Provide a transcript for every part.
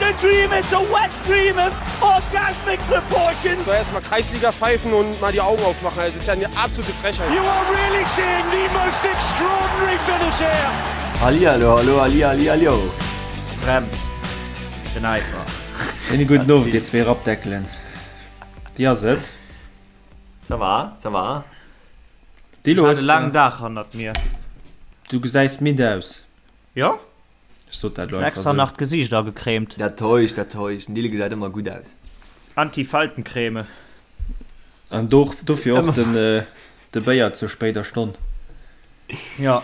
a dream, it's a wet dream of orgasmic proportions. So erstmal Kreisliga pfeifen und mal die Augen aufmachen. Das ist ja eine absolute Frechheit. You are really seeing the most extraordinary finish here. Hallihallo, hallo, halli, halli, hallo. Brems, den Eifer. Schéine gudden Owend, dir zwee Rappdeckelen. Wéi ass et? Ça va, ça va. Dilo, Ech hat e laangen Dag hannert mir. Du gesäis midd aus. Jo? Ech sot dat elo Ech hunn einfach extra esou. nach d'Gesiicht agecremt. Dat täuscht, dat täuscht. Den Dille gesäit ëmmer gutt aus. Anti-Faltencreme. An do, dofir och den, de Béier zur spéider Stonn. Jo.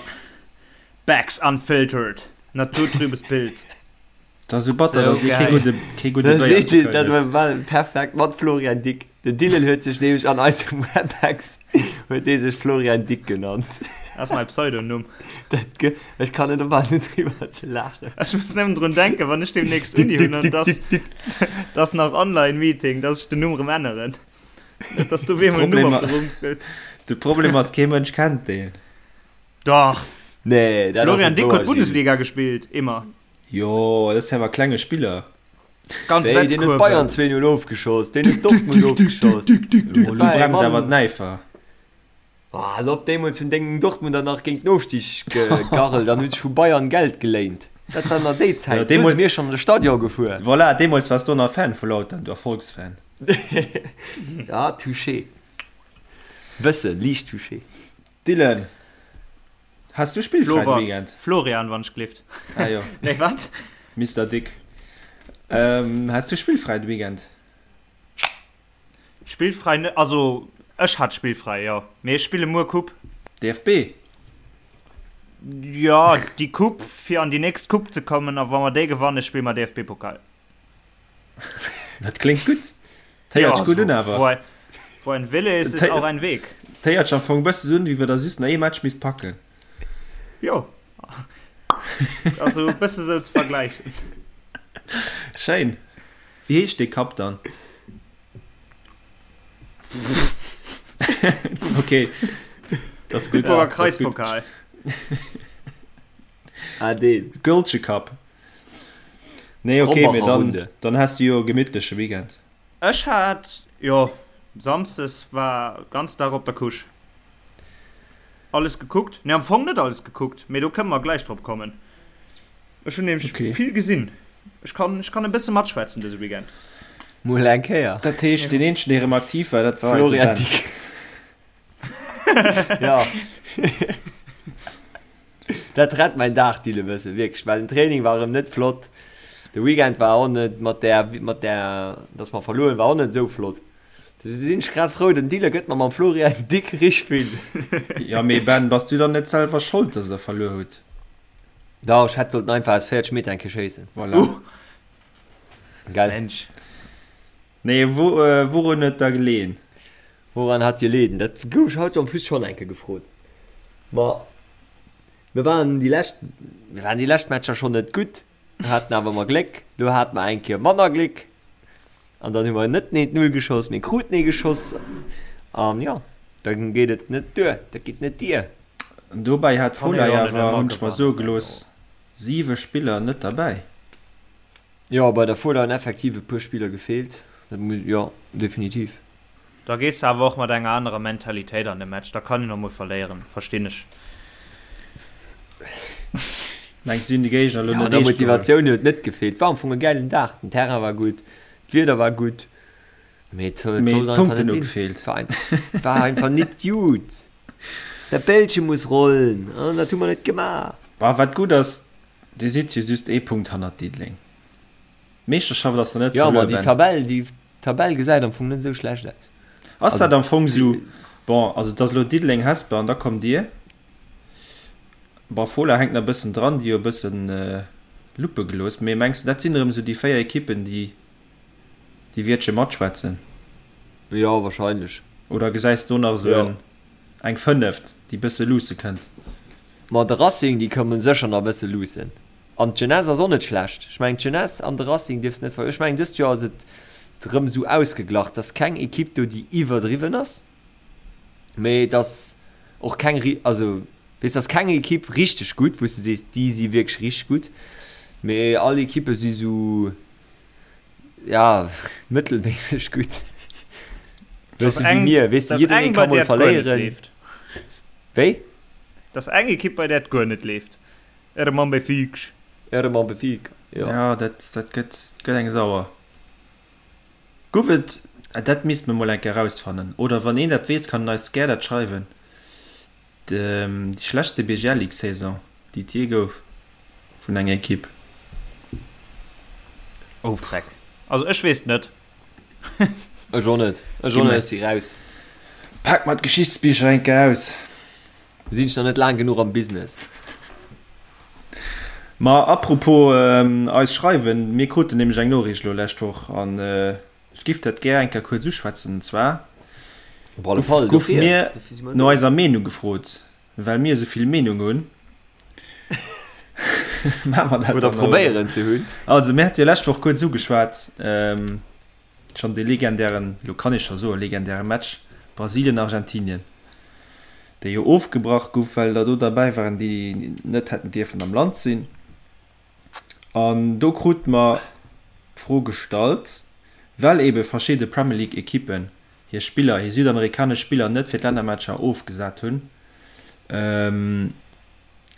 Becks Unfiltered. Naturtrübes Pilz. Dat ass esou batter, dass dir kee gudde, kee gudde Da Béier seet zu ee, Köln dat hutt. war perfekt mat Florian Dick. Den Dylan huet sech nämlech an eisem Webex huet dee sech Florian Dick genannt. Dat ass mäi Pseudonumm. Dat ge, ech kann net ophalen net driwwer ze laachen. Ech muss nëmmen drun denken, wann ech deemnächst Dick, Uni Dick, hunn an Dick, dass, Dick, Dick. dass nach Online-Meeting, dass ech den Numm erëm änneren. Net, dass do op eemol en Numm Problem, opgerummt gëtt. de Problem ass, kee Mënsch kennt deen. Dach! Nee, dat ass Florian net Dick wouer, huet Gilles. Bundesliga gespillt, immer. Jo, dat ass awer klenge Spiller. Ganz Wéi, deen huet Bayern Westkurve. 2-0 ofgeschoss, deen huet Dortmund ofgeschoss. Lo Dat war e brems awer Mann. d'Näifer. Ah, hal op, deemools hunn deng Dortmunder nach géint den Ofstig gegarrelt an hunn sech vu Bayern Geld geléint. Dat war nach déi Ja, Zäit, do si deemools, mir schonn an de Stadion gefuer. voilà, deemools waars du nach Fan vu Lautern, du Erfolgsfan. Ja, touché. Bëssen, liicht touché. Dylan, Has du spillfräi de Weekend? Florian, wann ech glift. Ah jo. Nee, wat? Mister Dick. Ähm, has du spillfräi de Weekend? Spillfräi net, also ech hat spillfräi, jo. Mee ech spille muer Coupe. DFB? Jo, déi Coupe, fir an déi nächst Coupe ze kommen. A wa mer déi gewannen, spille mer DFB-Pokal. Dat kléngt gutt. Dat héiert sech gutt un awer. Wo ein, wo ein Wille ist, ist auch ein Weg. Dat héiert sech am Fong e bësse un, wéi wa der just nach ee Match misst packen. Jo. Also e bësse sou ze vergläichen. Schéin. Wéi heescht dee Cup dann? Okay. Dat ass gutt. Bitburger Kreispokal. Ah, deen. Gëlsche Cup. Nee, okay, mee Krombacher dann, Runde. dann has du jo e gemittleche Weekend. Ech hat, jo, Samsdes war ganz Dag op der Couche. Alles gekuckt, nee am Fong net alles gekuckt, mee do kënne mer gläich drop kommen. Ech hunn nämlech Okay. vill gesinn. Ech kann, ech kann e bësse matschwätzen dëse Weekend. Mol eng Kéier. Dat heescht, deen eenzegen, dee erëm aktiv war, dat war eise Florian Ben. Dick. Ja. Dat rett mäin Dag Dylan e bëssen, wierklech, well den Training war erëm net flott, de Weekend war och net mat där, mat där, dass mer verluer hunn, war och net esou flott. Du sinn ech grad frou, den Dylan gëtt mer mam Florian Dick richteg vill. Jo, mee Ben, bass du dann net selwer Schold, dass der verluer hutt? Dach, ech hätt sollten einfach aus 40 Meter eng Kéier schéissen. Voilà. Gell? Mensch. Nee, wou, wourun huet da geleeën? Woran hat geleeën? Dat gouf ech haut en plus schonn eng Kéier gefrot. Ma mir waren déi lescht, mir waren déi lescht Matcher schonn net gutt, mir haten awer ëmmer Gléck. Lo hate mer eng Kéier manner Gléck an dann hu mer net nees d'Null geschoss, mee kruten ee geschoss an jo, da geet et net duer, dat geet net dier. An dobäi hat Kann ee d'Fola jo net awer, ëmmer hunn ech mer soe gewannen, gelooss, 7 Spiller net derbäi. Jo, bei der Fola hunn effektiv e puer Spiller gefeelt, dat muss, jo, definitiv. Da gees de awer och mat enger anerer Mentalitéit an de Match, da kann een och mol verléieren, verstinn ech. Mengs du, si hunn de Géigner elo Jo, net an der eescht geholl? Motivatioun huet net gefeelt. War am Fong e gäilen Dag, den Terrain war gutt, d'Wieder war gutt, mee et sollt Mee einfach d'Punkten net hu sinn. gefeelt. War einfach, war einfach nit gutt. Dat Bällche muss rollen an dat hu mer net gemaach. Bah, wat gutt ass, Dir sidd jo just ee Punkt hannert Diddeleng. D'Meeschterschaft ass nach net Jo, ma verluer, déi Ben. Tabell, déi Tabell gesäit am Fong net esou schlecht aus. Ass Also dat am Fong esou, bon, also et ass elo Diddeleng, Hesper an da kommt Dir. Bon, Fola hänkt nach e bëssen dran, déi hu e bëssen Luppe gelooss. Mee mengs de, dat sinn erëm esou déi 4 Ekippen, déi déi wiertche matschwätzen? Jo, wahrscheinlech. Oder gesäis do nach esou Jo. en, eng fënneft, déi bësse luusse kënnt? Ma de Racing, déi kommen sécher nach e bësse luussen. An d'Jeunesse ass och net schlecht. Ech mengen d'Jeunesse an de Racing dierfs net ver. Ech mengen dëst Joer ass et rëm esou ausgeglach, et ass keng Ekipp do déi iwwerdriwwen ass, mee et ass och keng ri-, also weess, et ass keng Ekipp richteg gutt, wou s de sees déi si wierklech richteg gutt, mee all Ekippe si sou. Ja, mëttelméisseg gutt. Weess du, wéi mir, weess du, jidderee ka mol verléieren. Wéi? Dat ass eng Ekipp, bei där et guer net leeft. Erëm am Befic. Erëm am Befic, jo. Ja, dat, dat gëtt, gëtt eng sauer. Guff et, dat misst mer mol eng Kéier erausfannen, oder wann een dat weess, kann en eis gär dat schreiwen, déi schlechtste BGL-Ligue-Saison, déi et jee gouf vun enger Ekipp. Oh freck, also ech weess et net. Ech och net, ech och net, ech si raus. Pak mer d'Geschichtsbicher eng Kéier aus. Sinn ech nach net laang genuch am Business. Ma apropos eis schreiwen, mir kruten nämlech eng Noriicht elo lescht Woch an ech giff dat gär eng Kéier kuerz uschwätzen. An zwar Op alle Fall, goufe dofir, mir dofir si mer no do. eiser Meenung gefrot. Well mir esou vill Meenung hunn, maache mer dat Oder dann och elo. probéieren ze hunn. Also mir hate jo lescht Woch kuerz ugeschwat, schonn dee legendären, elo kann ee scho soen, legendäre Match Brasilien-Argentinien, dee jo ofgebrach gouf, well der do derbäi waren, déi net hätten dierfen am Land sinn. An do krute mer d'Fro gestallt, well eebe verschidde Premier League-Ekippen hir Spiller, hir südamerikanesch Spiller net fir d'Lännermatcher ofgesat hunn,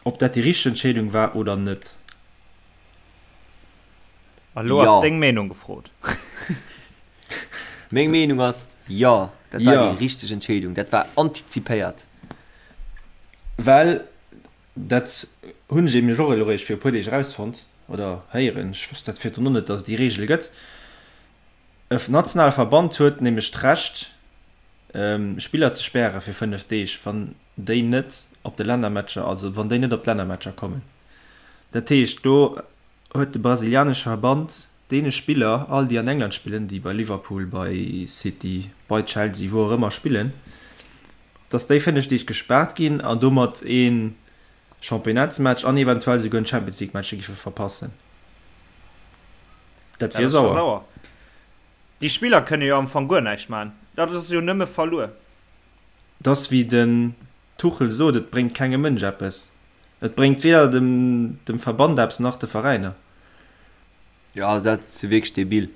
ob dat déi richteg Entscheedung war oder net. A lo ass deng Meenung gefrot. Meng Meenung ass, jo, dat war déi richteg Entscheedung. Dat war antizipéiert. Well, dat hunn ech eben och elo eréischt viru puer Deeg erausfonnt oder héieren, ech wosst dat virdrun och net, datt et déi Reegel gëtt, E nationale Verband huet nämlech d'Recht, Spiller ze späre fir 5 Deeg, wann déi net op de Lännermatcher, also wann déi net op d'Lännermatcher kommen. Dat heescht, do huet de brasilianesche Verband deene Spiller, all déi an England spillen, déi bei Liverpool, bei City, bei Chelsea, wou och ëmmer spillen, datt déi 5 Deeg gespaart ginn an domat ee Championnats-Match an eventuell souguer en Champions League-Match giffe verpassen. Dat wier sauer. sauer. Déi Spiller kënne jo am Fong guer näischt maachen. Dat ass jo nëmme verluer. Et ass wéi den Tuchel sot, et bréngt kengem Mënsch eppes. Et bréngt weder dem dem Verband eppes nach de Veräiner. Jo, dat ass jo wierklech debil.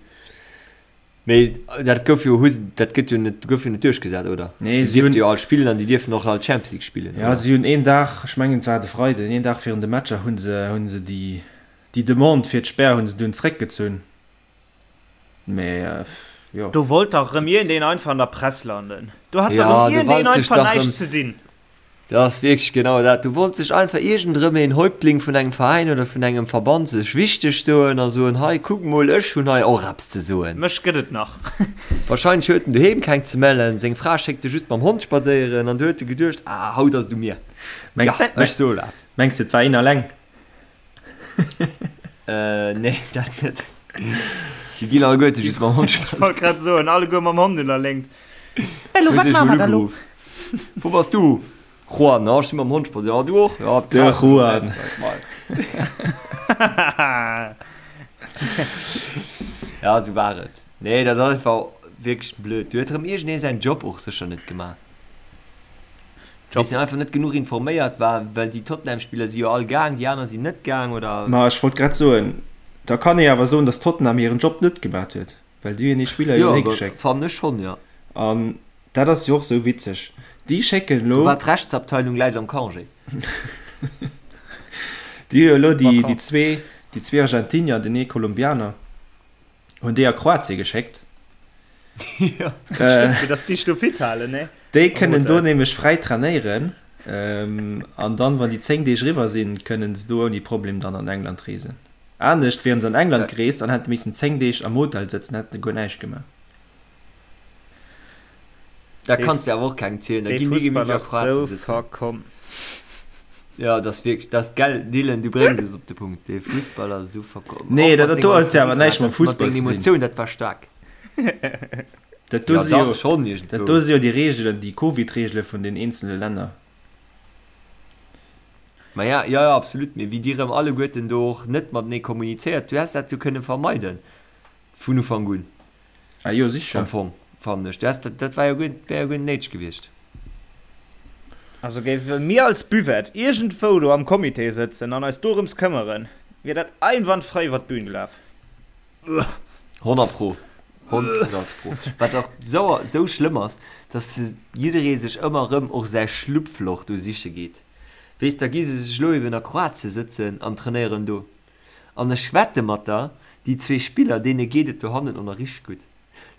Mee dat gouf jo, hu se, dat gëtt jo net, gouf jo net duerchgesat, oder? Nee, Déi si hunn. dierfte jo all spillen an déi dierfen och all Champions League spillen, Ja, oder? si hunn een Dag, ech mengen et war de Freiden, een Dag virun de Matcher hu se, hu se déi, déi Demande fir d'Spär hu se dunn zréckgezunn. Mee jo. Do wollt dach erëm iergendeen einfach an der Press landen. Do hat dach Ja, erëm do iergendeen wollt sech einfach dach erëm. näischt ze dinn. Dat ass wierklech genau dat. Do wollt sech einfach iergendrëm een Häuptling vun engem Veräin oder vun engem Verband sech wichteg doen a soen, hei kuck mol, ech hunn hei och eppes ze soen. Mech gëtt et nach. Wahrscheinlech huet en doheem keng ze mellen, seng Fra schéckt e just mam Hond spadséieren an du huet e geduecht, ah haut ass et u mir, Mengs, jo ech soe eppes. mengs de et war een alleng? Nee, dat net. Déi ginn alleguerte just mam Hond Ech wollt grad soen, alleguer mam Hond un der Léngt. Elo, wat maache mer da lo? Wou bass du? Juan, ah, ech si mam Hond spadséieren. Ah, du och? Ja, De Juan. Ja, esou war et. Nee, dat ass einfach wierklech blöd. Do huet erëm iergendee säin Job och sécher net gemaach. Jobs. Weess einfach net genuch informéiert war, well déi Tottenham-Spiller si jo all gaang, déi aner sinn net gaang, oder? Ma ech wollt grad soen, da kann ee awer soen, datt Tottenham hiren Job net gemat huet, well déi hunn hir Spiller jo Jo, higeschéckt. fannen ech schonn, jo. An dat ass jo och sou witzeg, déi schécken Do elo. war d'Rechtsabteilung läit am Congé. Déi hu jo elo déi, déi zwee, déi zwee Argentinier an den ee Kolumbianer. Hunn déi a Kroatien geschéckt. Ja, äh, stimmt, dass déi do fit halen, ne? Déi kënnen do nämlech fräi trainéieren ähm, an dann, wann déi 10 Deeg riwwer sinn, kënnen se do ouni Problem dann an England reesen. Anescht wieren se an England gereest an hätte missen 10 Deeg am Hotel sëtzen, hätten guer näischt gemaach. Da kanns de awer och kengem zielen, da ginn déi gemütlech a Kroatien sëtzen. Ja, dat ass wierklech, dat ass, gell Dylan, du bréngs et op de Punkt, dee Fussball ass esou verkomm. Nee, dat dat do huet jo awer näischt mam Fussball ze dinn. Mat denger Emotioun, dat war staark. Dat do si jo, dat do si jo déi Reegelen, déi Covid-Reegele vun den eenzele Länner. Ma ja, ja, ja, absolut, mee wéi déi rëm alleguerten do och net matenee kommunizéiert, du häss dat jo kënne vermeiden vun Ufank un. Ah jo, sicher. Am Fong, fannen ech. Dat, dat war jo guer, wär jo guer net néideg gewiescht. Also géife mir als Buvette iergendwou do am Comité sëtzen an eis dorëms këmmeren, wier dat einwandfrei iwwer d'Bühn gelaf. 100 pro. 100 pro. Wat och sou, sou schlëmm ass, dass jidderee sech ëmmer erëm och säi Schlupfloch do siche geet. Weess, da gi se sech elo eben a Kroatie sëtzen an trainéieren do. An ech wette mat der, déi zwee Spiller, deene geet et dohannen och nach richteg gutt.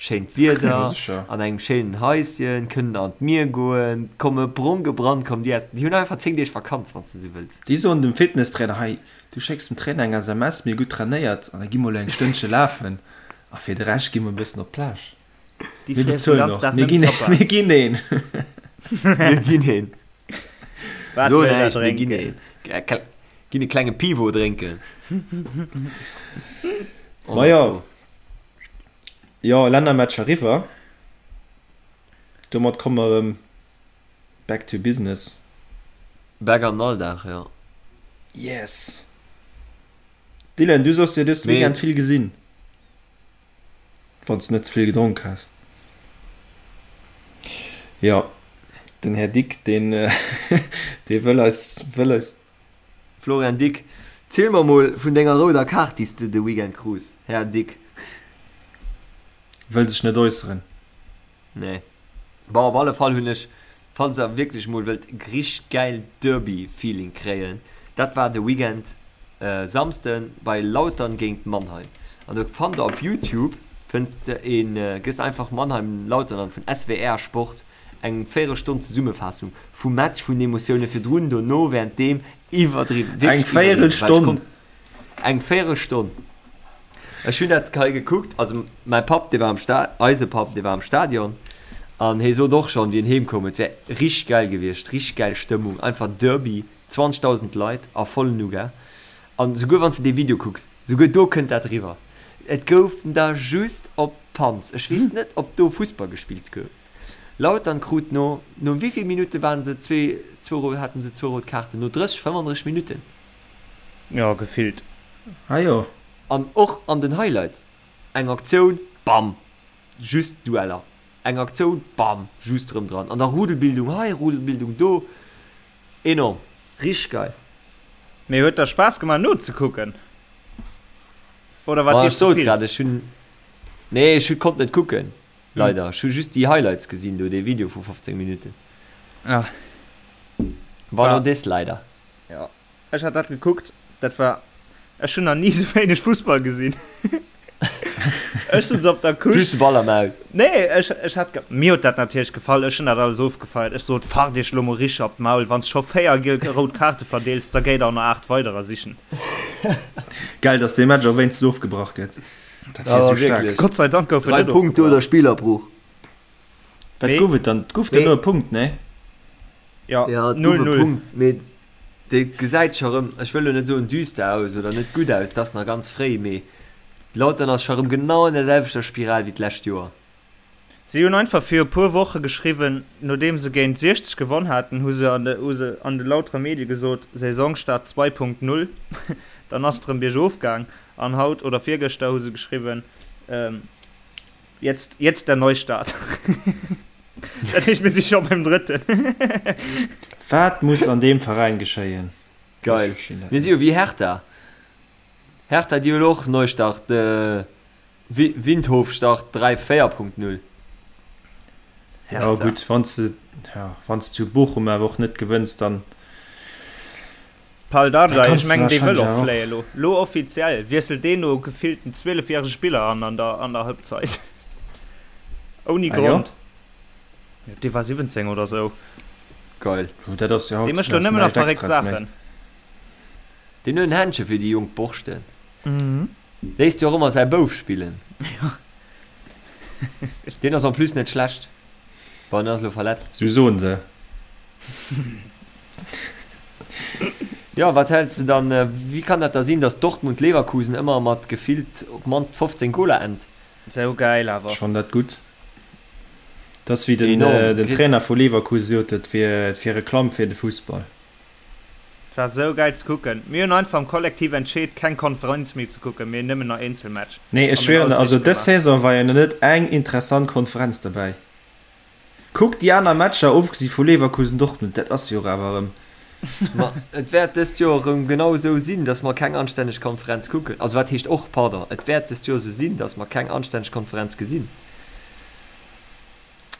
Schéint Wieder, an engem schéinen Haischen, kënnen an d'Mier goen, komme brong gebrannt, kommen déi aus. Déi hunn einfach 10 Deeg Vakanz, wann s de sou wëlls. Déi soen dem Fitnesstrainer, hei, du schécks dem Trainer eng SMS, mir hu gutt trainéiert an da gi mer elo eng Stënnche lafen a fir de Rescht gi mer e bëssen op d'Plage. Déi Mir friessen den bezuelen ganzen och, Dag mir nëmmen ginn, Tapas. mir ginn een. Mir ginn een. Wat So wëll der näischt, mir ginn drénken? een. Äh, Ginn e klenge Pivo drénken. Ma jo. Jo, Lännermatch eriwwer. Domat komme mer erëm back to business. Back an den Alldag, jo. Yes! Dylan, du soss jo dëst Weekend vill gesinn. Wann s de net ze vill gedronk has. Jo, den Här Dick, deen, dee wëll eis, wëll eis. Florian Dick, ziel mer mol vun denger rouder Kaart déi s de de Weekend krus, Här Dick. Wëll sech net äusseren. Nee. Bon, op alle Fall hunn ech, falls der wierklech mol wëllt richteg gäil Derby-Feeling kréien, dat war de Weekend Samsden bei Lautern géint Mannheim. An do fannt der op Youtube, fënns de een, gëss einfach Mannheim Lautern an, vun SWR Sport, Eng Véierelstonn Zesummefaassung vum Match, vun den Emotioune virdrun, dono, wärenddeem. Iwwerdriwwen, Eng wierklech iwwerdriwwen. Well ech Véierelstonn? konnt Eng Véierelstonn. Ech hunn dat hei gekuckt, also mäi Papp, dee war am Sta, eise Papp, dee war am Stadion an hie sot och schonn, wéi en heem koum, et wär richteg gäil gewiescht, richteg gäil Stëmmung, einfach Derby, 20.000 Leit a vollen Nougat. An souguer wann s de dee Video kucks, souguer do kënnt dat eriwwer. Et goufen der just op d'Panz. Ech weess net, ob do Fussball gespillt gouf. Lautern krut no, no wéivill Minutte waren se zwee, zwou, haten se zwou rout Kaarten? No 30, 35 Minutten? Jo, gefillt. Ah jo. An och an den Highlights, eng Aktioun, bam, just Dueller, eng Aktioun, bam, just rëm dran. An da Rudelbildung hei, Rudelbildung do, enorm, richteg geil. Mee huet der Spaass gemaach nozekucken oder war Ma dir ech sot zevill? grad, ech hunn, nee, ech konnt net kucken. Leider, ech hu just déi Highlights gesinn do, dee Video vu 15 Minuten. Ah. War no des leider. Jo, ech hat dat gekuckt, dat war, ech hunn nach ni sou wéineg Fussball gesinn. Ech sutz op der Couche. Just de Ball am Aus. Nee, ech, ech hat, mir huet dat natierlech gefall, ech hunn dat alles ofgefeiert. Ech sot, Fart iech lo mol richteg op d'Maul, wann s scho 4 giel rout Kaarte verdeels, da géi der och nach 8 weiderer sichen. Geil, dass dee Match och wéinstens ofgebrach gëtt. Dat wier sou staark. Gott sei Dank gouf en 3 net Punkte ofgebrach. oder Spillerbruch. Wat Mee- gouf et dann? Et gouf dann no e Punkt, nee? Ja, Ja, et gouf e 0-0. Punkt, mee dee gesäit scho rëm, ech wëll lo net soen düster aus oder net gutt aus, et ass nach ganz fréi, mee Lautern ass scho rëm genau an der selwechter Spiral wéi d'lescht Joer. Si hunn einfach fir e puer Woche geschriwwen, nodeem se géint 60 gewonn haten, hu se an de hu se an de lautere Medie gesot, Saisonstart 2.0, dann ass et rëm biergof gaang. An haut oder virgëschter hu se geschriwwen, Jetzt, jetzt der Neustart. Dat heescht, mir si scho beim drëtten. Wat muss an deem Veräin geschéien? Geil. Mir si jo wéi Hertha. Hertha, déi hunn och Neustart, Windhofstart 3, 4.0. Ja gutt, wann s de, ja, wann s de zu Bochum awer och net gewënns, dann. Pal Dardai, Da ech mengen dee wëll och fléie och. lo. Lo offiziell wiesselt deen no gefillten 12 järege Spiller an an der an der Halbzeit. Ouni Ah jo? Grond. Jo, dee war 17 oder sou. Geil. Jo, dat ass jo Dee haut mécht lo ass nëmmen nach näischt verréckt Extraes méi. Saachen. Deen huet en Händche fir déi jonk Borschten. Léisst jo och ëmmer säi Bouf spillen. Jo. Deen ass en plus net schlecht. Bon, en ass elo verletzt. Sou soen se. Jo, wat häls de dann, wéi kann dat da sinn, datt Dortmund Leverkusen ëmmer mat gefillt op d'mannst 15 Goler ennt? Sou geil awer. Ech fannen dat gutt. Dat ass wéi den, Enorm. den Trainer vu Leverkusen sot, et wier, et wier Reklamm fir de Fussball. Et war sou geil ze kucken. Mir hunn einfach am Kollektiv entscheet keng Konferenz méi ze kucken, mee nëmmen nach Eenzelmatch. Nee, ech An mir hunn schwieren der, alles also richteg dës gemaach. Saison war jo nach net eng interessant Konferenz derbäi. Kuck déi aner Matcher, ofgesi vu Leverkusen, Dortmund, dat ass jo och awer erëm. Ma et wäert dëst Joer erëm genau esou sinn, datt mer keng anstänneg Konferenz kucken. Also wat heescht och, pardon, et wäert dëst Joer esou sinn, datt mer keng anstänneg Konferenz gesinn.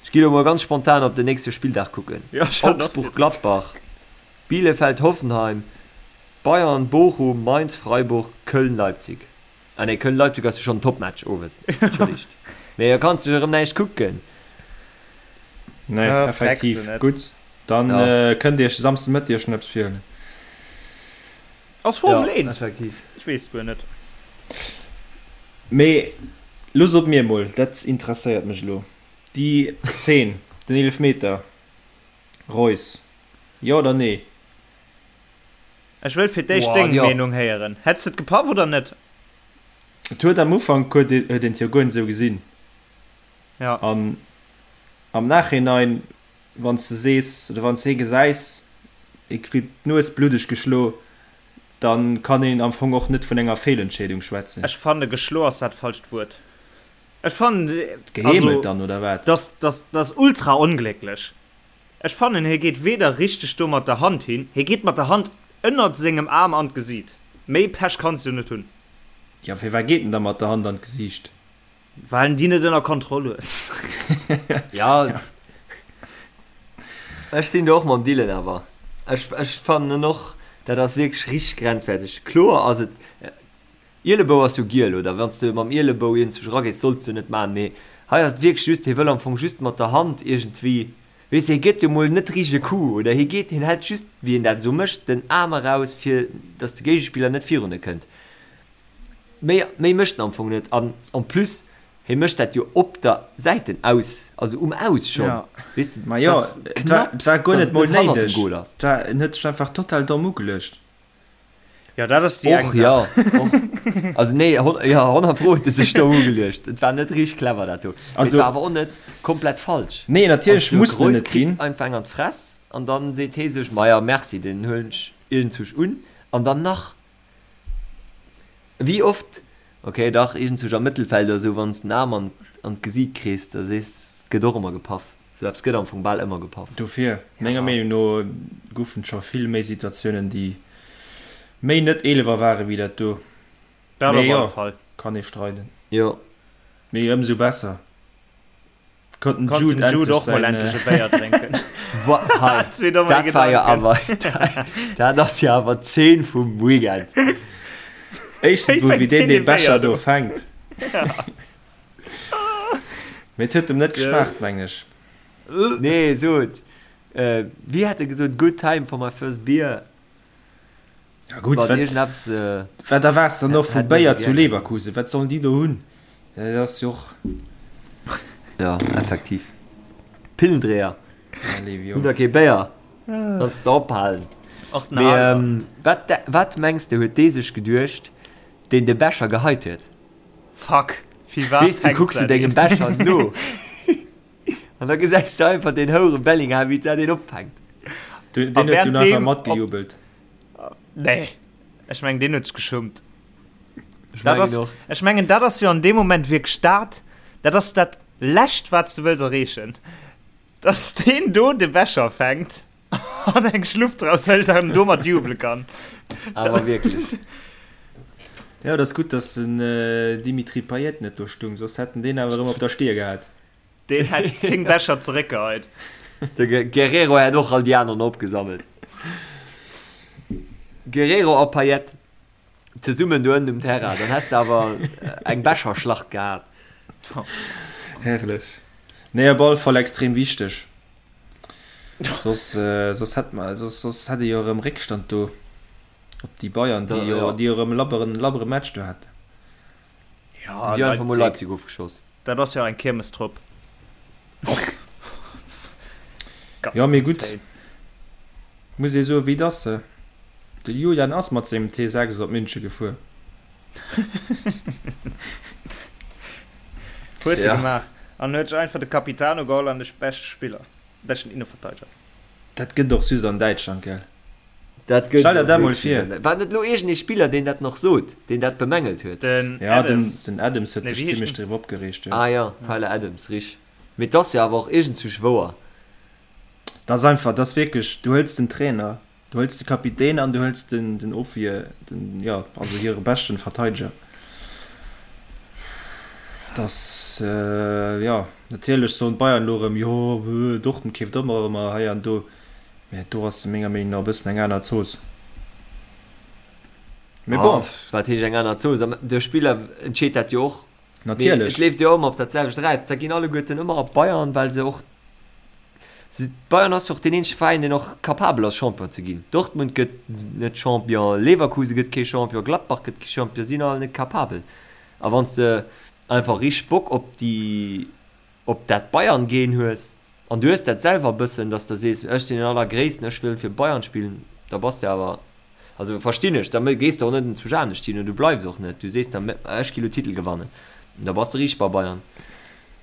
Ech gi lo mol ganz spontan op den nächste Spilldag kucken. Ja, ech hat och Augsburg-Gladbach, Bielefeld-Hoffenheim, Bayern-Bochum, Mainz-Freiburg, Köln-Leipzig. Ah nee, Köln-Leipzig ass jo schonn en Topmatch owes, entschëllegt. Mee da kanns de jo erëm näischt kucken. Nee, Ah, frecks effektiv. du net. Gutt, dann Ja. kënnt Dir iech de Samsden Mëtteg schon eppes virhuelen. Ass Formel Ja, 1? effektiv. Ech weess et guer net. Mee lo sot mir emol, dat interesséiert mech elo, déi Zeen, den Eelefmeter, Reus, jo oder nee? Ech wëll fir d'éischt Boah, deng jo. Meenung héieren. Hätt's de et gepaff oder net? Et huet am Ufank huet een et jo guer net esou gesinn. Ja. An am Nachhinein, wann s de sees oder wann s de hie gesäis, hie kritt d'Nues bluddeg geschlo, da kann een am Fong och net vun enger Feelentscheedung schwätzen. Ech fanne geschlo ass dat falscht Wuert. Ech fannen, also, Geheemelt dann, oder wat? dass, dass, dass ultra onglécklech. Ech fannen hie geet weder richteg do mat der Hand hin, hie geet mat der Hand ënnert sengem Aarm an d'Gesiit. Méi Pech kanns du net hunn. Jo, firwat geet en da mat der Hand an d'Gesiicht? Well en déi net ënner Kontroll huet. Jo, ech sinn do och mam Dylan awer. Ech, ech fannen och, dat ass wierklech richteg grenzwerteg. Kloer ass et, Ielebou ass jo giel, oder wann s de mam Ielebou iergendzwousch eragees, solls de net maachen, mee hei ass et wierklech just, hie wëll am Fong just mat der Hand iergendwéi, weess de, hie gëtt jo mol net richteg e Coup, oder hie geet, hien hält just, wéi een dat esou mécht, den Aarm eraus, fir datt de Géigespiller net virun e kënnt. Méi, méi mécht en am Fong net an en plus, hie mécht dat jo op der Säiten aus, also um Aus schonn, Ja. weess de, Ma jo, dass et war, et knapps, war guer datt net et mol net hannert dem néideg. Goal ass. Et war, en huet sech einfach total domm ugeluecht. Ja, dat ass déi eng Och, Saach. ja, och. Also nee, hon, ja, 100 Pro huet e sech do ugeluecht. Et war net richteg clever dat do. Mee et Also, war awer och net komplett falsch. nee, natierlech Also de muss en Reus net kritt ginn. einfach eng an d'Fress an dann seet hee sech, Maja, merci, deen huelen ech iergendzwousch un. An dann nach, wéi oft, okay, dach, iergendzwousch am Mëttelfeld oder sou, wann s den Aarm an, an d'Gesiit kriss, da sees, et gëtt och ëmmer gepaff. Sou eppes gëtt am Fong bal ëmmer gepaff. Dofir, menger Ja. Meenung no, goufen et scho vill méi Situatiounen, déi méi net Eelewer ware wéi dat do. Dat Mee op alle jo, Fall. kann ee streiden. Jo. Mee ëmsou besser konnt den Konnt Jude den Jude endlech och mol säin. endlech e Béier drénken. Wa, hei, Zwee domme dat war jo Gedanken. awer, dat ass jo awer d'Zeen vum Weekend. Éischtens Wéi mol, wéi fänkt deen deen dee e Béier Becher do do? fänkt. Ja. Mee et huet em net geschmaacht, mengen ech. Nee, sot, wéi hat e gesot, good time for my first beer. Ja gutt, Wann wat, iergendeppes, wat erwaards de dann och vu hätt mir Béier se zu gär. Leverkusen? Wat sollen déi do hunn? Dat ass jo och. Ja, effektiv. Pillendreher. Ja, Levi, Hunn jo. der kee Béier? Sollt der ophalen. Och den Mee Albert. wat, wat mengs de huet dee sech geduecht, deen de Becher geheit huet? Fuck, firwat Weess du, fänkt kucks du se dengem een? Becher no an da gesäis du einfach deen houere Bellingham, wéi dat een opfänkt. Deen A huet dunn einfach während deem op matgejubelt. Nee, ech mengen deen huet sech geschummt. Ech Dat mengen ass, och. ech mengen dat ass jo an deem Moment wierklech dat, dat ass dat lescht wat s de wëlls erreechen, dass deen do de Becher fänkt an eng Schlupp draus hëlt an domat jubele kann. Awer wierklech. Jo, et ass gutt, dass den Dimitri Payet net do stung, soss hätt en deen awer erëm op der Stier gehat. Deen hätt 10 Becher zeréckgeheit. De Guerrero hätt och all déi aneren opgesammelt. Guerrero a Payet zesummen do ënnen um Terrain, dann häss de awer eng Becherschlacht gehat. Herrlech. Nee, op alle Fall extrem wichteg. Soss, soss hätt mer, soss, soss hätt ee jo erëm Réckstand do op déi Bayern, déi jo, déi jo erëm e labberen, labbere Match do haten. Ja, Déi einfach mol Leipzig. Leipzig ofgeschoss. Dat ass jo eng Kiermestrupp. Ganz Jo, mee grouss gutt, Téin. muss ee soen, wéi et ass. De Julian ass mat sengem T6 op München gefuer. Huet e Ja. gemaach. An huet sech einfach de Capitano geholl an de beschte Spiller, beschten Inneverteideger. Dat gëtt och just an Däitschland, gell? Dat gëtt Stell der dat mol wierklech vir. just an. War net elo iergend ee Spiller, deen dat nach sot, deen dat bemängelt huet? Den Ja, den, Adams. den Adams huet Nee, sech wéi heescht zimmlech den? driwwer opgereegt, jo. Ah ja, Tyler Adams, rich. Mee 't ass jo awer och iergendzwousch wouer. Dat ass einfach, dat ass wierklech, du hëls den Trainer. Du hëls de Kapitän an du hëls den, den Ofwier, den, jo, also hire beschten Verteideger. Dass, jo, natierlech soen d'Bayern elo erëm, jo, Dortmund keeft ëmmer erëm hei an do, mä do ass menger Meenung no e bëssen eng aner Zooss. Mee bon. Wat heescht eng aner Zooss? De Spiller entscheet dat jo och. Natierlech. Et leeft jo ëmmer op dat selwecht eraus. Da ginn alleguerten ëmmer op Bayern, well se och Bayern ass jo och deen eenzege Veräin, deen och capabel ass, Champion ze ginn. Dortmund gëtt net Champion, Leverkusen gëtt kee Champion, Gladbach gëtt kee Champion, si sinn all net capabel. A wann s de einfach richteg Bock op déi, op dat Bayern-Gen hues, an du hues dat selwer e bëssen, datt s de sees, ech sinn den Allergréissten, ech wëll fir Bayern spillen, da bass de awer Also verstinn ech, da gees de och net zu Janesch hin, du bleifs och net, du sees da ech gi lo Titel gewannen, da bass de riicht bei Bayern.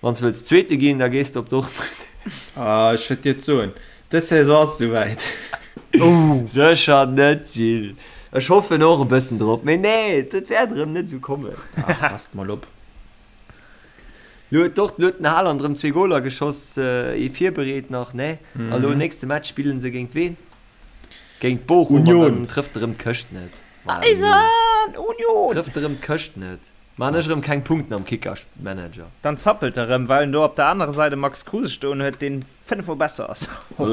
Wann s de wëlls Zweete ginn, da gees de op Dortmund. Ah, ech wëllt dir et soen, dës Saison ass esouwäit. Sécher net, Gilles. Ech hoffen och e bëssen drop, mee nee, dat wäert erëm net esou kommen. Ach, passt mol op. Lo huet Dort, lo huet den Haaland erëm zwee Goler geschoss, ee virbereet nach, ne? A lo nächste Match spillen se géint ween? Géint Bochum an Union. dann trëfft erëm d'Këscht net. Voilà, Eisen Union! Trëfft erëm d'Këscht net. Maan ech erëm keng Punkten am Kicker-Manager. Dann zappelt e rëm, well en do op der anerer Säit e Max Kruse stoen huet, deen 5 mol besser ass. Am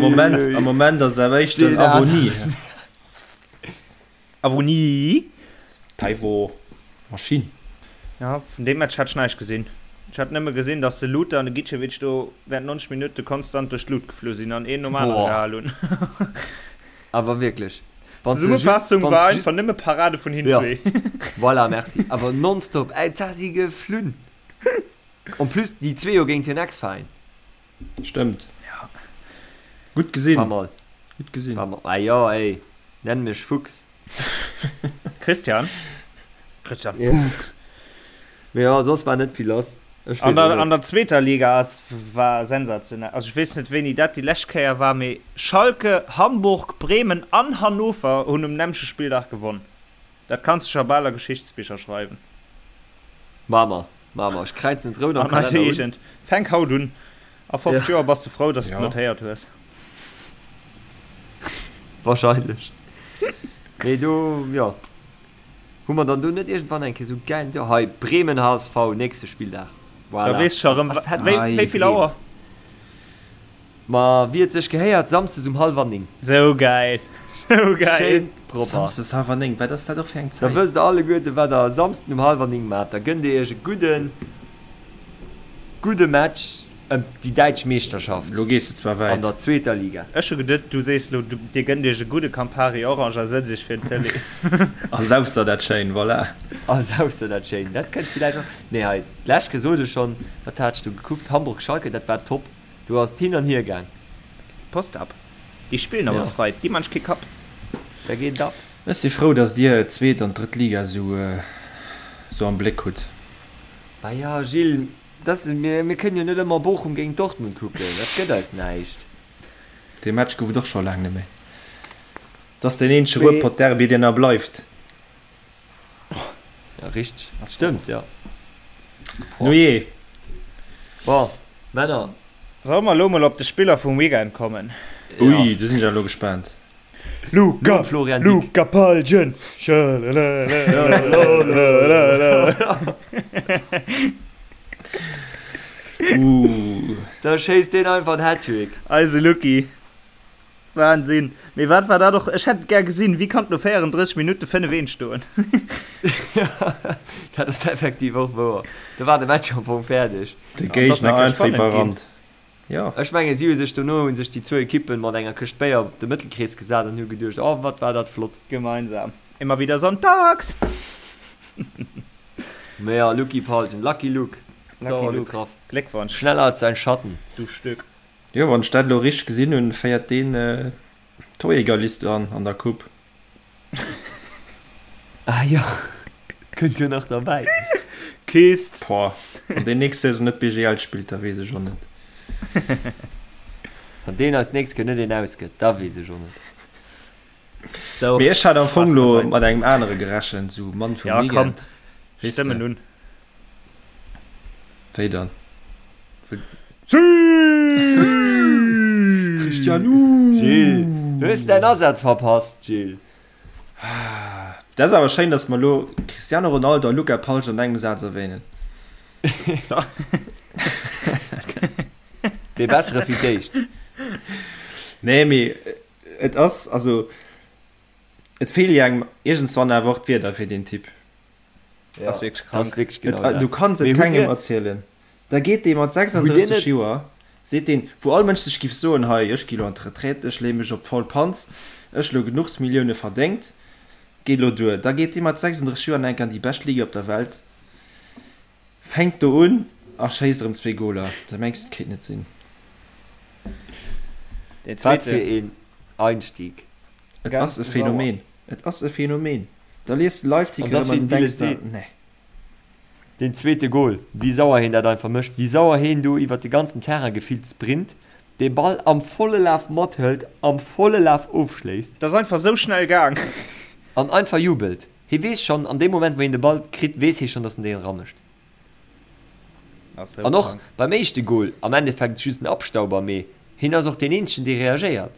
Moment, am Moment ass awer éischter den Avoni. Avoni? Taiwo, Maschinn. Ja, vun deem Match hat ech näischt gesinn. Ech hat nëmme gesinn, dass de Lute an de Gicevic do während 90 Minutte konstant duerch d'Lut geflu sinn an een nom anere gehal hunn. Awer wierklech. D'Zesummefassung war einfach nëmme Parade vun hinn zwee. Voilà, merci. Awer nonstop, ey, da si geflunn. En plus déi zwee jo géint hir Ex-Veräin. Stëmmt. Ja. Gutt gesinn. Paar Mol. Gutt gesinn. Paar Mol. Ah jo, ey. Nenn mech Fuchs. Christian? Christian Fuchs. Mee jo, soss war net vill lass. Ech weess och net. An der zweeter Liga ass war sensationell. Also ech weess net wéini dat déi lescht Kéier war, mee Schalke, Hamburg, Bremen an Hannover hunn um nämmleche Spilldag gewonn. Dat kanns de scho bal a Geschichtsbicher schreiwen. Maa mer, maa mer. Ech kräizen et rout am An eise Kalenner un. Eegent. Fänk haut un. A 50 Ja. Joer bass de frou, dass de et Ja. notéiert hues. Wahrscheinlech. Mee do, jo. Hu mer dann do net iergendwann eng Kéier sou gäil, jo hei, Bremen HSV, nächste Spilldag. Da Voilà. weess scho rëm, Als hätt wéi, ech wéi vill gedreemt. Auer? Ma wéi et sech gehéiert, Samsdes um hallwer 9. Sou gäil, sou gäil. Schéin propper. Samsdes hallwer 9, wat ass dat och fir eng Da Zäit? wësst der alleguerten, wat der e Samsden um hallwer 9 maacht. Da gënnt dir iech e gudden, gudde Match ëm déi däitsch Meeschterschaft Lo gees de zwar an wäit. der zweeter Liga. Ech hu geduet, du sees lo, dir gënnt iech e gudde Campari Orange a sëtzt iech fir den Tëlee. A saufs der dat schéin, voilà. A saufs der dat schéin. Dat kënnt villäicht och. Nee, hei, d'lescht gesot ech schonn, wat hat ech do gekuckt? Hamburg-Schalke, dat war top. Do ass et hin an hier gaang. Post ab. Déi spillen awer Ja. frei, déi man kee Kapp. Da geet et ab. Ech si frou, dass dir d'zweet an d'drëtt Liga sou sou am Bléck hutt. Bah ja, Gilles, dass, mir, mir kënnen jo net ëmmer Bochum géint Dortmund kucken, dat gëtt eis näischt. Dee Match gouf et och scho laang net méi. Et ass deen eenzege Ruhrpott-Derby, deen nach bleift. Ja, richteg. Stëmmt, ja. Nujee. Bon, Männer. Solle mer elo mol op de Spiller vum Weekend kommen? Ui, do sinn ech awer elo gespaant. Luca, Florian Dick. Luca Palgen. Uh. Da schéisst deen einfach en Hattrick. Eise Lucky. Wahnsinn! Mee wat war dat och? Ech hätt et gär gesinn. Wéi kann et no 34 Minutte 5, 1 stoen? Dat ass effektiv och wouer. Do war de Match am Fong fäerdeg. De Géigner einfach iwwerrannt. Jo. Ech mengen, si hu sech dono hu sech déi zwou Ekippen mat enger Këscht Béier op de Mëttelkrees gesat an hu geduecht, Oh, wat war dat flott. Gemeinsam. Immer wieder sonntags! Mee jo, Lucky Palgen, Lucky Luke, Lucky sauer Luke. getraff. Gléckwonsch, Schneller als sein Schatten. du Stück. Jo, wann ech dat elo richteg gesinn hunn, féiert deen d'Torjägerliste an an der Coupe. Ah jo, kënnt jo nach derbäi. Kist! Boah, wann deen nächst Saison net BGL spillt, da weess ech och net. Wann deen eis d'nächst Kéier net een ausgëtt, da weess ech och net. Sou, Mee ech hat am Fong Spaass elo beiseit. mat engem anere gerechent, sou Mann vum Ja, komm, Weekend, weess de. stëmmen un. Wéi dann? Christian, uh! Gilles, du hues däin Asaz verpasst, Gilles. Dat ass awer schéin, dass mer elo Cristiano Ronaldo a Luca Palsch an engem Saz erwähnen. Dee Bessere fir d'éischt. Nee, mee et ass, also et feele jo engem iergendswann awer och d'Wierder fir deen Typ. Ja, ass wierklech krank. Ass wierklech genau Et, dat. du kanns et Mee hutt kengem dir, erzielen. Da geet dee mat hutt dir 36 net, Joer, seet deen, wou all Mënsch sech giff soen, hei, ech gi lo an d'Retraite, ech leeë mech op d'faul Panz, ech lo genuchs Millioune verdéngt, geet lo duer. Da geet dee mat 36 Joer nach eng Kéier an déi bescht Liga op der Welt, fänkt do un a schéisst erëm zwee Goler. Da mengs de, et kéint net sinn. Deen wat zweete. fir een Einstieg. Et Ganz ass e sauer. Phänomen. Et ass e Phänomen. Da liest de An Live-Ticker dass erëm an wéi du den Dylan denks der, seet, nee. Deen zweete Gol, wéi sauer heen dat einfach mécht, wéi sauer heen do iwwert de ganzen Terrain gefillt sprint, dee Ball am volle Laf mathëlt, am volle Laf ofschléisst. Dat ass einfach sou schnell gaang. An einfach jubelt. Hee weess schonn, an deem Moment wou heen de Ball kritt, weess hee schonn, dass en deen eramécht. Ass sou An och krank. beim éischte Gol, am Endeffekt just en Abstauber, mee heen ass och deen eenzegen, dee reagéiert.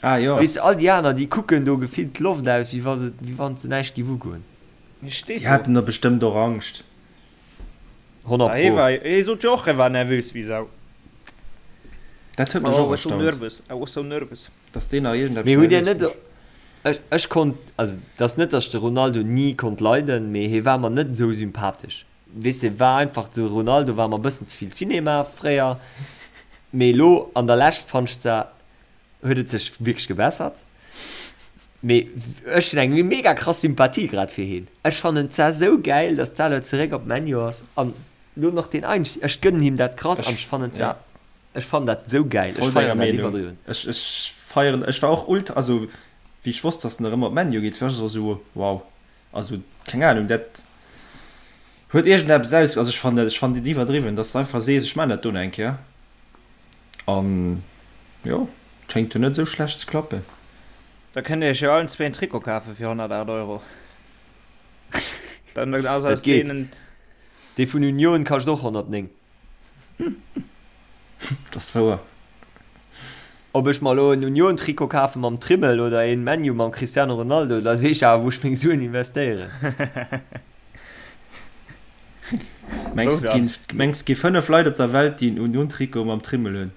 Ah jo. Weess de, all déi aner, déi kucken do gefillt d'Loft aus, wéi wa se, wéi wann se näischt géif ugoen. Hie steet Déi do. haten da bestëmmt och Angscht. 100 Ah, hie pro. war, hie sot jo och, e war nervös wéi Sau. Dat huet mech Oh, I och was so erstaunt, nervous, I was so nervous. dass deen nach iergendeppes Mee hutt Dir nervös net, mécht. ech, ech konnt, also et ass net, datt ech de Ronaldo ni konnt leiden, mee hie war mer net esou sympathesch. Weess de, war einfach, de Ronaldo war mer e bëssen ze vill Cinema fréier, mee elo an der Lescht fannt ech zwar, huet et sech wierklech gebessert, mee ech hunn eng mega krass Sympathie grad fir hien. Ech fannen et zwar esou gäil, datt d'Salo zeréck op ManU ass an elo nach deen Einstieg, ech gënnen him dat krass an Ech, ech fannen et ja, zwar, ech fannen dat esou gäil, ech voll denger feieren dat Meenung. iwwerdriwwen. Ech, ech feieren, ech war och ultra, also wéi ech wosst, datt en erëm op ManU geet, war ech och esou, wow. Also keng Ahnung, dat huet iergendeppes aus, also ech fannen dat, ech fannen dat iwwerdriwwen, dass de einfach sees, ech maan dat do nach eng Kéier an jo, et schéngt jo net esou schlecht ze klappen. Da kënnt dir iech jo allen zwee en Trikot kafe fir 108 Euro. Dann ass Dat aus geet. deenen. Dee vun Union kascht och 109. Dat ass wouer. Ob ech mer elo en Union-Trikot kafe mam Trimmel oder een ManU mam Cristiano Ronaldo, da weess ech awer wou ech meng Suen investéieren. Mengs Wou et dann? ginn, mengs et gi 5 Leit op der Welt déi en Union-Trikot mam Trimmel hunn?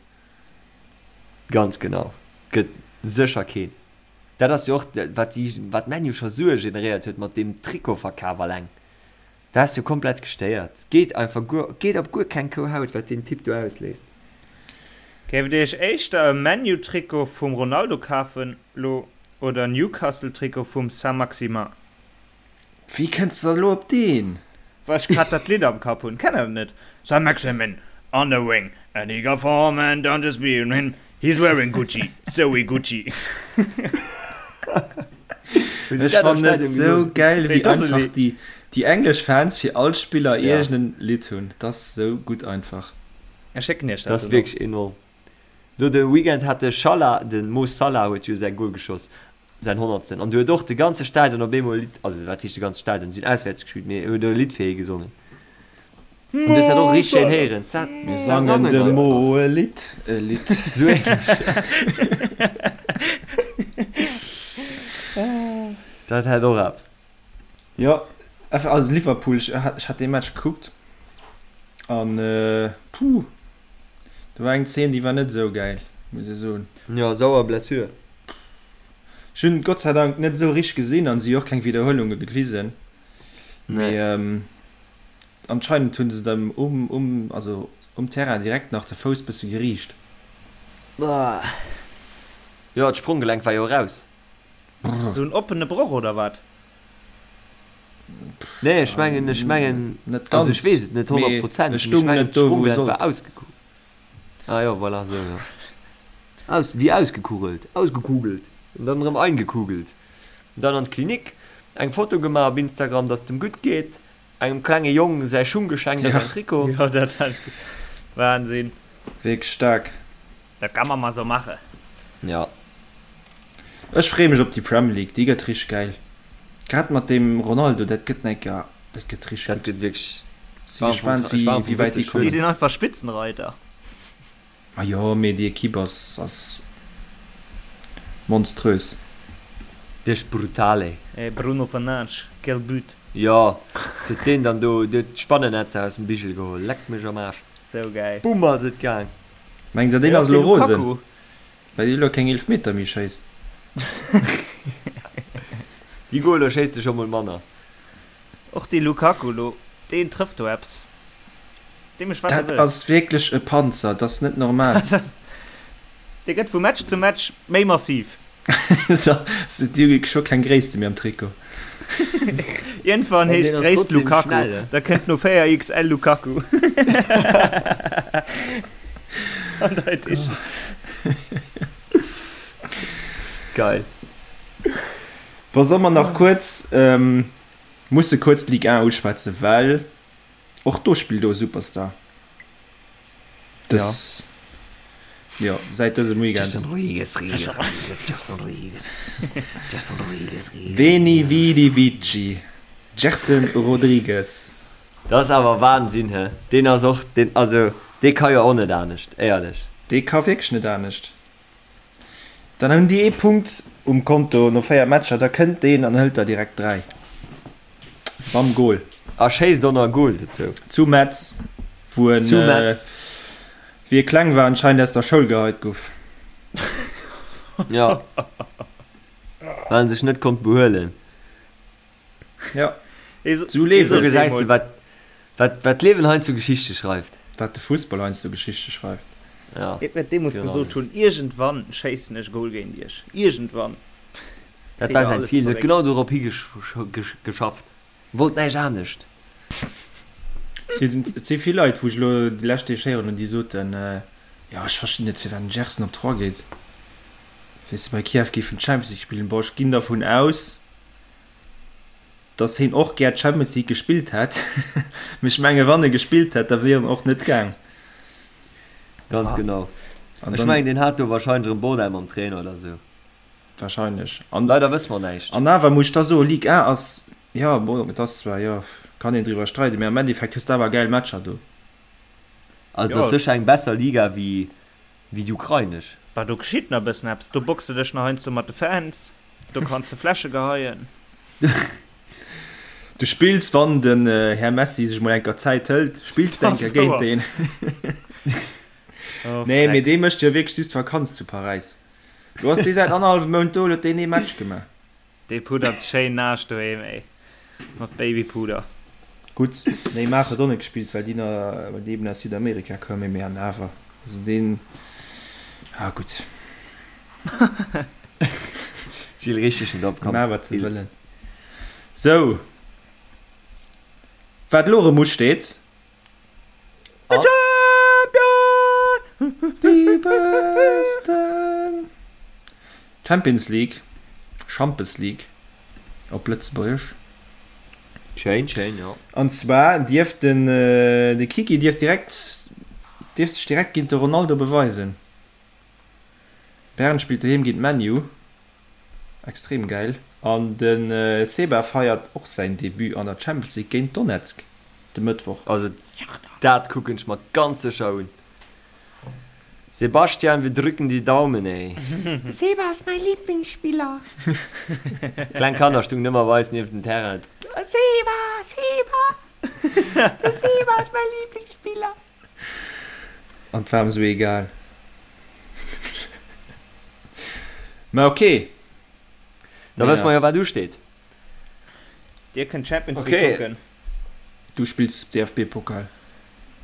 Ganz genau, gëtt sécher keen. Dat ass jo och wat déi, wat ManU scho Sue generéiert huet mat deem Trikotverkaf alleng. Dat ass jo komplett gestéiert. Geet einfach guer, geet op guer keng Kou Haut, wat deen Typ do ausléist. Géift dir iech éischter e ManU-Trikot vum Ronaldo kafen lo oder e Newcastle-Trikot vum Saint-Maximin? Wéi kënns de da lo op deen? Well ech grad dat Lidd am Kapp hunn. Kennt der dat net? Saint-Maximin on the wing and he got form and don't just be him, he's wearing Gucci, so we Gucci. Ech fannen et sou gäil wéi einfach déi déi englesch Fans fir all Spiller iergend en Lidd hunn. Dat ass sou gutt einfach. Ech schécken iech Dat dat ass dono. wierklech enorm. Lo de Weekend hat de Schalah, de Mo Salah huet jo säi Goal geschoss, säin honnertsten, an du huet och de ganze Stadion op eemol e Lidd, also wat heescht de ganze Stadion, si hunn auswäerts gespillt, mee huet e Lidd fir hie gesongen. An du hues dat och richteg schéin héieren. Za Mir za sangen sangen dem einfach. Mo e Lidd, e Lidd. Sou ähnlech. Dat hätt och eppes. Jo, also Liverpool, ech ech hat dee Match gekuckt an puh, do war eng Zeen, déi war net esou gäil, muss ech soen. Jo, sauer Blessure. Ech hunn et Gott sei Dank net esou richteg gesinn an si hu och keng Widderhuelunge gewisen, Nee. mee anscheinend hunn se dem um um also um Terrain direkt nach de Fouss bësse geriicht. Jo, d'Spronggelenk war jo eraus. Sou en oppene Broch oder wat? Nee, ech mengen, ech mengen, Net also ech ganz, weess et net mee 100 Prozent, e mee ech stung mengen net do wou e d'Sprunggelenk war sollt. ausgekugelt. Ah jo, voilà, sou jo. Aus, wéi ausgekugelt, ausgekugelt an dann erëm eingekugelt. An dann an d'Klinik, eng Foto gemaach op Instagram, dass et em gutt geet, engem klenge Jong säi Schung geschenkt a Ja. säin Trikot. Jo, dat hat ech. Wahnsinn. Wierklech staark. Dat kann man mal sou mache. Ja. Ech freeë mech op déi Premier League, déi gëtt richteg gäil. Grad mat deem Ronaldo, dat gëtt eng Kéier, dat gëtt richteg Dat gutt. gëtt wierklech. Si gespaant wéi wéi wäit déi Déi kommen. sinn einfach Spitzenreiter. Ma jo, mee déi Equipe ass ass monströs. Dech brutale. Eh Bruno Fernandes, quel but! Jo, huet deen dann do huet d'Spannennetzer aus dem Bigel geholl, leck mech am Aarsch. Sou gäil. Bumm ass et gaang. Mengt der deen ass elo rosen, well dee elo keng Eelefmeter méi schéisst? Déi Goler schéisst e scho mol manner. Och dee Lukaku lo, deen trëfft do eppes. Dee mécht wat e Dat wëll. ass wierklech e Panzer, dat ass net normal. Dee gëtt vu Match zu Match méi massiv. Déi hu scho keng Gréisste méi am Trikot. Iergendwann heescht d'Gréisst Lukaku, da kënnt no 4 XL Lukaku. Eindeitig. Geil. Bon, solle mer nach kuerz, musse kuerz d'Ligue 1 uschwätzen, well och do spillt elo e Superstar. Dës, jo, säit dësem Weekend. Gerson Rodrigues, Rodrigues, Rodrigues, Gerson Rodrigues, Gerson Rodrigues, Rodrigues. Veni Vidi Vici, Gerson Rodrigues. Dat ass awer Wahnsinn, he? Deen ass och, deen, also dee ka jo och net anescht, éierlech. Dee ka wierklech net anescht. Dann hunn déi ee Punkt um Konto no 4 Matcher, da kënnt deen an hëlt der direkt 3. Mam Gol. A schéisst och nach e Gol dozou. Zu Metz, wou en, Zu Metz. wéi e kleng war, anscheinend aus der Schoul geheit guff. Jo. Well en sech net konnt behuelen. Ja. Sou Liewen. Gesäis de wat wat wat d'Liewen heiansdo Geschichte schreift. Wat de Fussball heiansdo Geschichte schreift. Ja. Et wäert deemools gesot hunn, iergendwann schéissen ech e Goal géint iech. Iergendwann. Dat war säin Zil. En huet genau dorop higeschafft. Wollt näischt anescht. Et si vill Leit, wou ech elo déi lescht Deeg héieren hunn, déi soten, jo ech verstinn net firwat den Gerson op Troyes geet, weess de, bei Kiew géifen d'Champions League spillen. Bon, ech ginn dervun aus, dass heen och gär d'Champions League gespillt hätt, mee ech menge wann e gespillt hätt, da wier en och net gaang. Ganz genau. Ech mengen deen hat do wahrscheinlech erëm Bordell mam Trainer oder sou. Wahrscheinlech. An leider wësse mer näischt. An awer muss ech da soen, Ligue 1 ass, jo bon, et ass zwar, jo, kann een driwwer streiden, mee am Endeffekt hues de awer gäil Matcher do. Also et ass sécher eng besser Liga wéi wéi déi ukrainesch. Bah do geschitt nach e bëssen eppes, do boxe dech nach heiansdo mat de Fans, do kanns de Fläsche geheien. Du spills, wann den Här Messi sech mol enker Zäit hëlt, spills de enker géint deen. Nee, mee dee mécht jo wierklech just Vakanz zu Paräis. Lo ass dee säit annerhallwem Mount do, lo huet deen ee Match gemaach. Dee puddert schéin naasch doheem, ey. Mat Babypuder. Gutt, Neymar huet och net gespillt, well déi na, well déi eben aus Südamerika koumen, mee an awer, also deen, ah gutt. Gilles, richteg net op, komm. Maach wat se wëllen. Sou, wat elo erëm usteet. Ass. Déi Besten! Champions League, Schampes League op Lëtzebuergesch. Schéin, schéin, jo. An zwar dierf den de Kiki dierf direkt dierf sech direkt géint de Ronaldo beweisen. Bern spillt doheem géint ManU. Extrem gäil. An de Seba feiert och säin Debut an der Champions League géint Donetsk de Mëttwoch. Also dat kucken ech mer ganz sécher un. Sebastian, wir drücken die Daumen, ey. De Seba ass mäi Lieblingsspiller. Kleng Kanner stungen ëmmer bei eis nieft dem Terrain. Seba, Seba, de Seba ass mäi Lieblingsspiller. An 't war em sou egal. Mä ok. Da wësse mer jo wat usteet. Dir kënnt Champions League kucken. Du spills DFB-Pokal.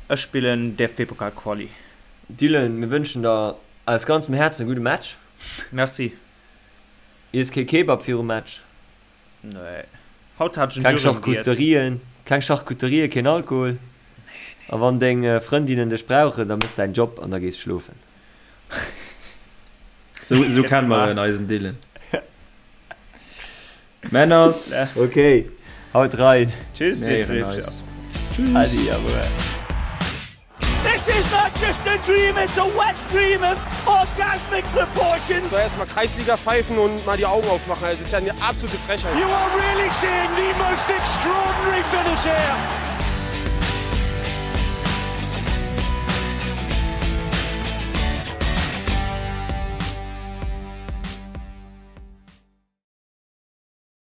Ech spillen DFB-Pokal Quali. Dylan, mir wënschen der aus ganzem Häerzen e gudde Match. Merci. Iess kee Kebab virum Match. Nee. Haut hat ech en Keng Dürüm giess. Charcuterien, keng Charcuterien, keen Alkohol. A wann deng Frëndinnen dech brauchen, da mëss däin Job an da gees schlofen. Sou, sou kenne mer en, eisen Dylan. Männers. Ok, haut rein. Tschüss, dir Zweepcher. Tschüss. Adi, awuer. This is not just a dream, it's a wet dream of orgasmic proportions. So erstmal Kreisliga pfeifen und mal die Augen aufmachen. Also, das ist ja eine absolute Frechheit. You are really seeing the most extraordinary finish here.